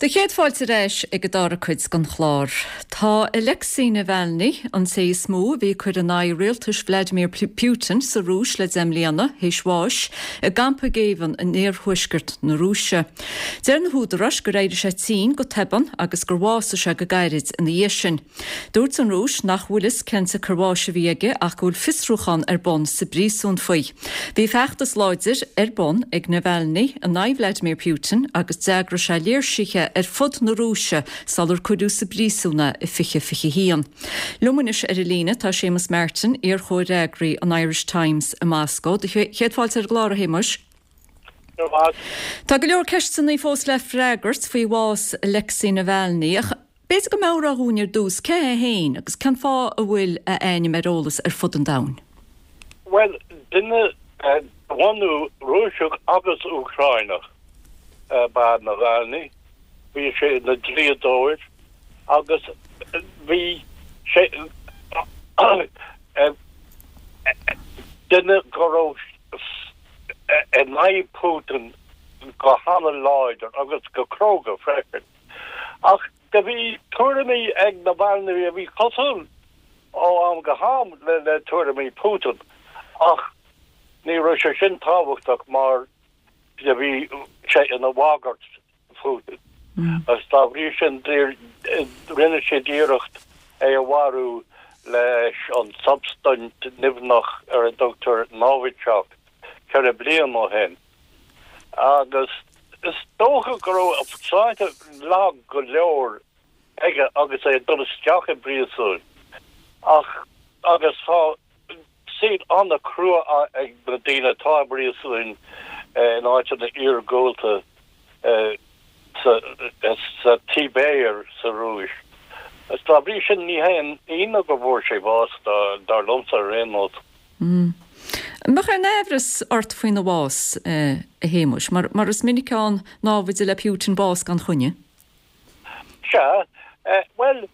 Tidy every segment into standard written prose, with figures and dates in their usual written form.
Do chéad fáilte ar ais ag an dara cuid den chlár. Tá Alexei Navalny, an té is mó a bhí ag cur in aghaidh rialtais Vladimir Putin sa Rúis le 10 mbliana, théis bháis i gcampa géibheann in iarthuaisceart na Rúise. Deir na húdaráis gur éirigh sé tinn go tobann agus gur bhásaigh sé go gairid ina dhiaidh sin. Dúirt an Rúis nach bhfuil fhios cén tsiocair bháis a bhí aige ach go bhfuil fiosrúchán ar bun sa bpríosún faoi. Bhí feachtas láidir ar bun ag Navalny in aghaidh Vladimir Putin agus d'eagraigh sé léirsithe ar fud na Rúise sular cuireadh sa bpríosún é i 2021. Liom anois ar an líne tá Séamus Martin, iar-chomhfhreagraí an Irish Times i Moscó. Do chéad fáilte ar an gclár, a Shéamuis. Tá go leor ceisteanna fós le freagairt faoi bhás Alexei Navalny ach b'fhéidir go meabhrófá dhúinn ar dtús cé hé féin agus cén fáth a bhfuil a ainm ar eolas ar fud an domhain. Bhuel, duine de bhunú Rúiseach agus Úcráineach ab ea Navalny. Bhí sé ina dlíodóir agus bhí sé duine go raibh in aghaidh Putin go hana-láidir agus go cróga freisin. Ach do bhí tuairimí ag Navalny a bhí cosúil ó am go ham le tuairimí Putin ach ní raibh sé sin tábhachtach mar do bhí sé ina bhagairt Putin agus dá bhrí sin rinne siad iarracht é a mharú leis an tsubstaint nimhneach ar a dtugtar Novichok 4 bliana ó shin. Agus is dócha go raibh a shláinte lag go leor aige agus é ag dul isteach i bpríosún ach agus tá saol an-chrua ag na daoine atá i bpríosúin in áiteanna iargúlta sa tSibéir sa Rúis. Agus dá bhrí sin ní haon ionadh go bhfuair sé bás, dar liomsa ar aon nós. An mbeadh aon aimhreas ort faoina bhás, a Shéamuis, mar is minic ann námhaid le Putin bás gan choinne? Sea, bhuel,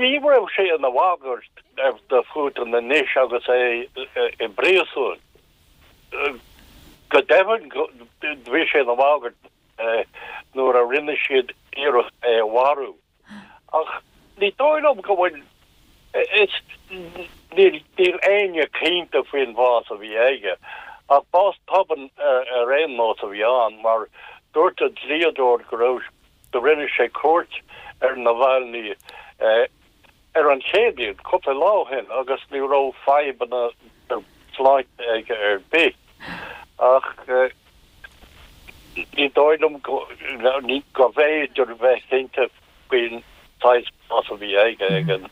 Ní raibh sé ina bhagairt do Phutin anois agus é i bpríosún. Go deimhin, bhí sé ina bhagairt nuair a rinne siad iarracht é a mharú. Ach ní dóigh liom go bhfuil, is, níl éinne cinnte faoin bhás a bhí aige. Ach bás tobann ar aon nós a bhí ann, mar dúirt a dhlíodóir go raibh Do rinne sé cuairt ar Navalny ar an Chéadaoin, cúpla lá ó shin, agus ní raibh fadhbanna sláinte aige ar bith. Ach ní dóigh liom go bhféidir bheith cinnte faoin saghas bás a bhí aige ag an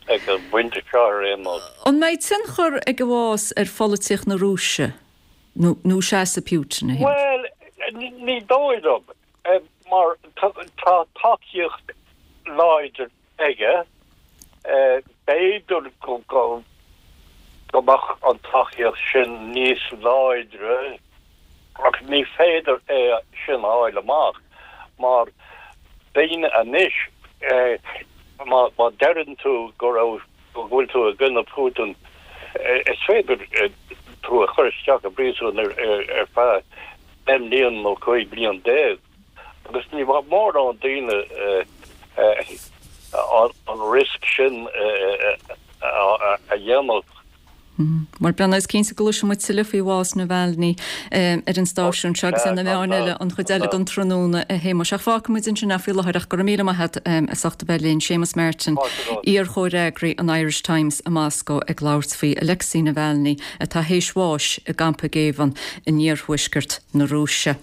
bpointe seo ar aon nós. An mbeidh tionchar ag a bhás ar pholaitíocht na Rúise nó seasamh Putin, a Shéamuis? Bhuel, ní dóigh liom. Mar tá tacaíocht láidir aige, b'fhéidir go mbeadh an tacaíocht sin níos láidre ach ní féidir é sin a fháil amach mar daoine anois, má deireann tú go raibh, go bhfuil tú i gcoinne Putin, is féidir tú a chur isteach i bpríosún ar feadh 10 mbliana nó 15 bliain agus ní bheadh mórán daoine an riosca sin a dhéanamh. Bhuel, breathnóidh, is cinnte go gcloisfidh muid tuilleadh faoi bhás Navalny ar an stáisiún seo agus ar na meáin eile an chuid eile den tráthnóna, a Shéamuis. Ach fágfaidh muid ansin é faoi láthair ach go raibh míle maith agat as ucht a bheith linn. Séamus Martin, iar-chomhfhreagraí an Irish Times i Moscó ag labhairt faoi Alexei Navalny atá théis bháis i gcampa géibheann in iarthuaisceart na Rúise.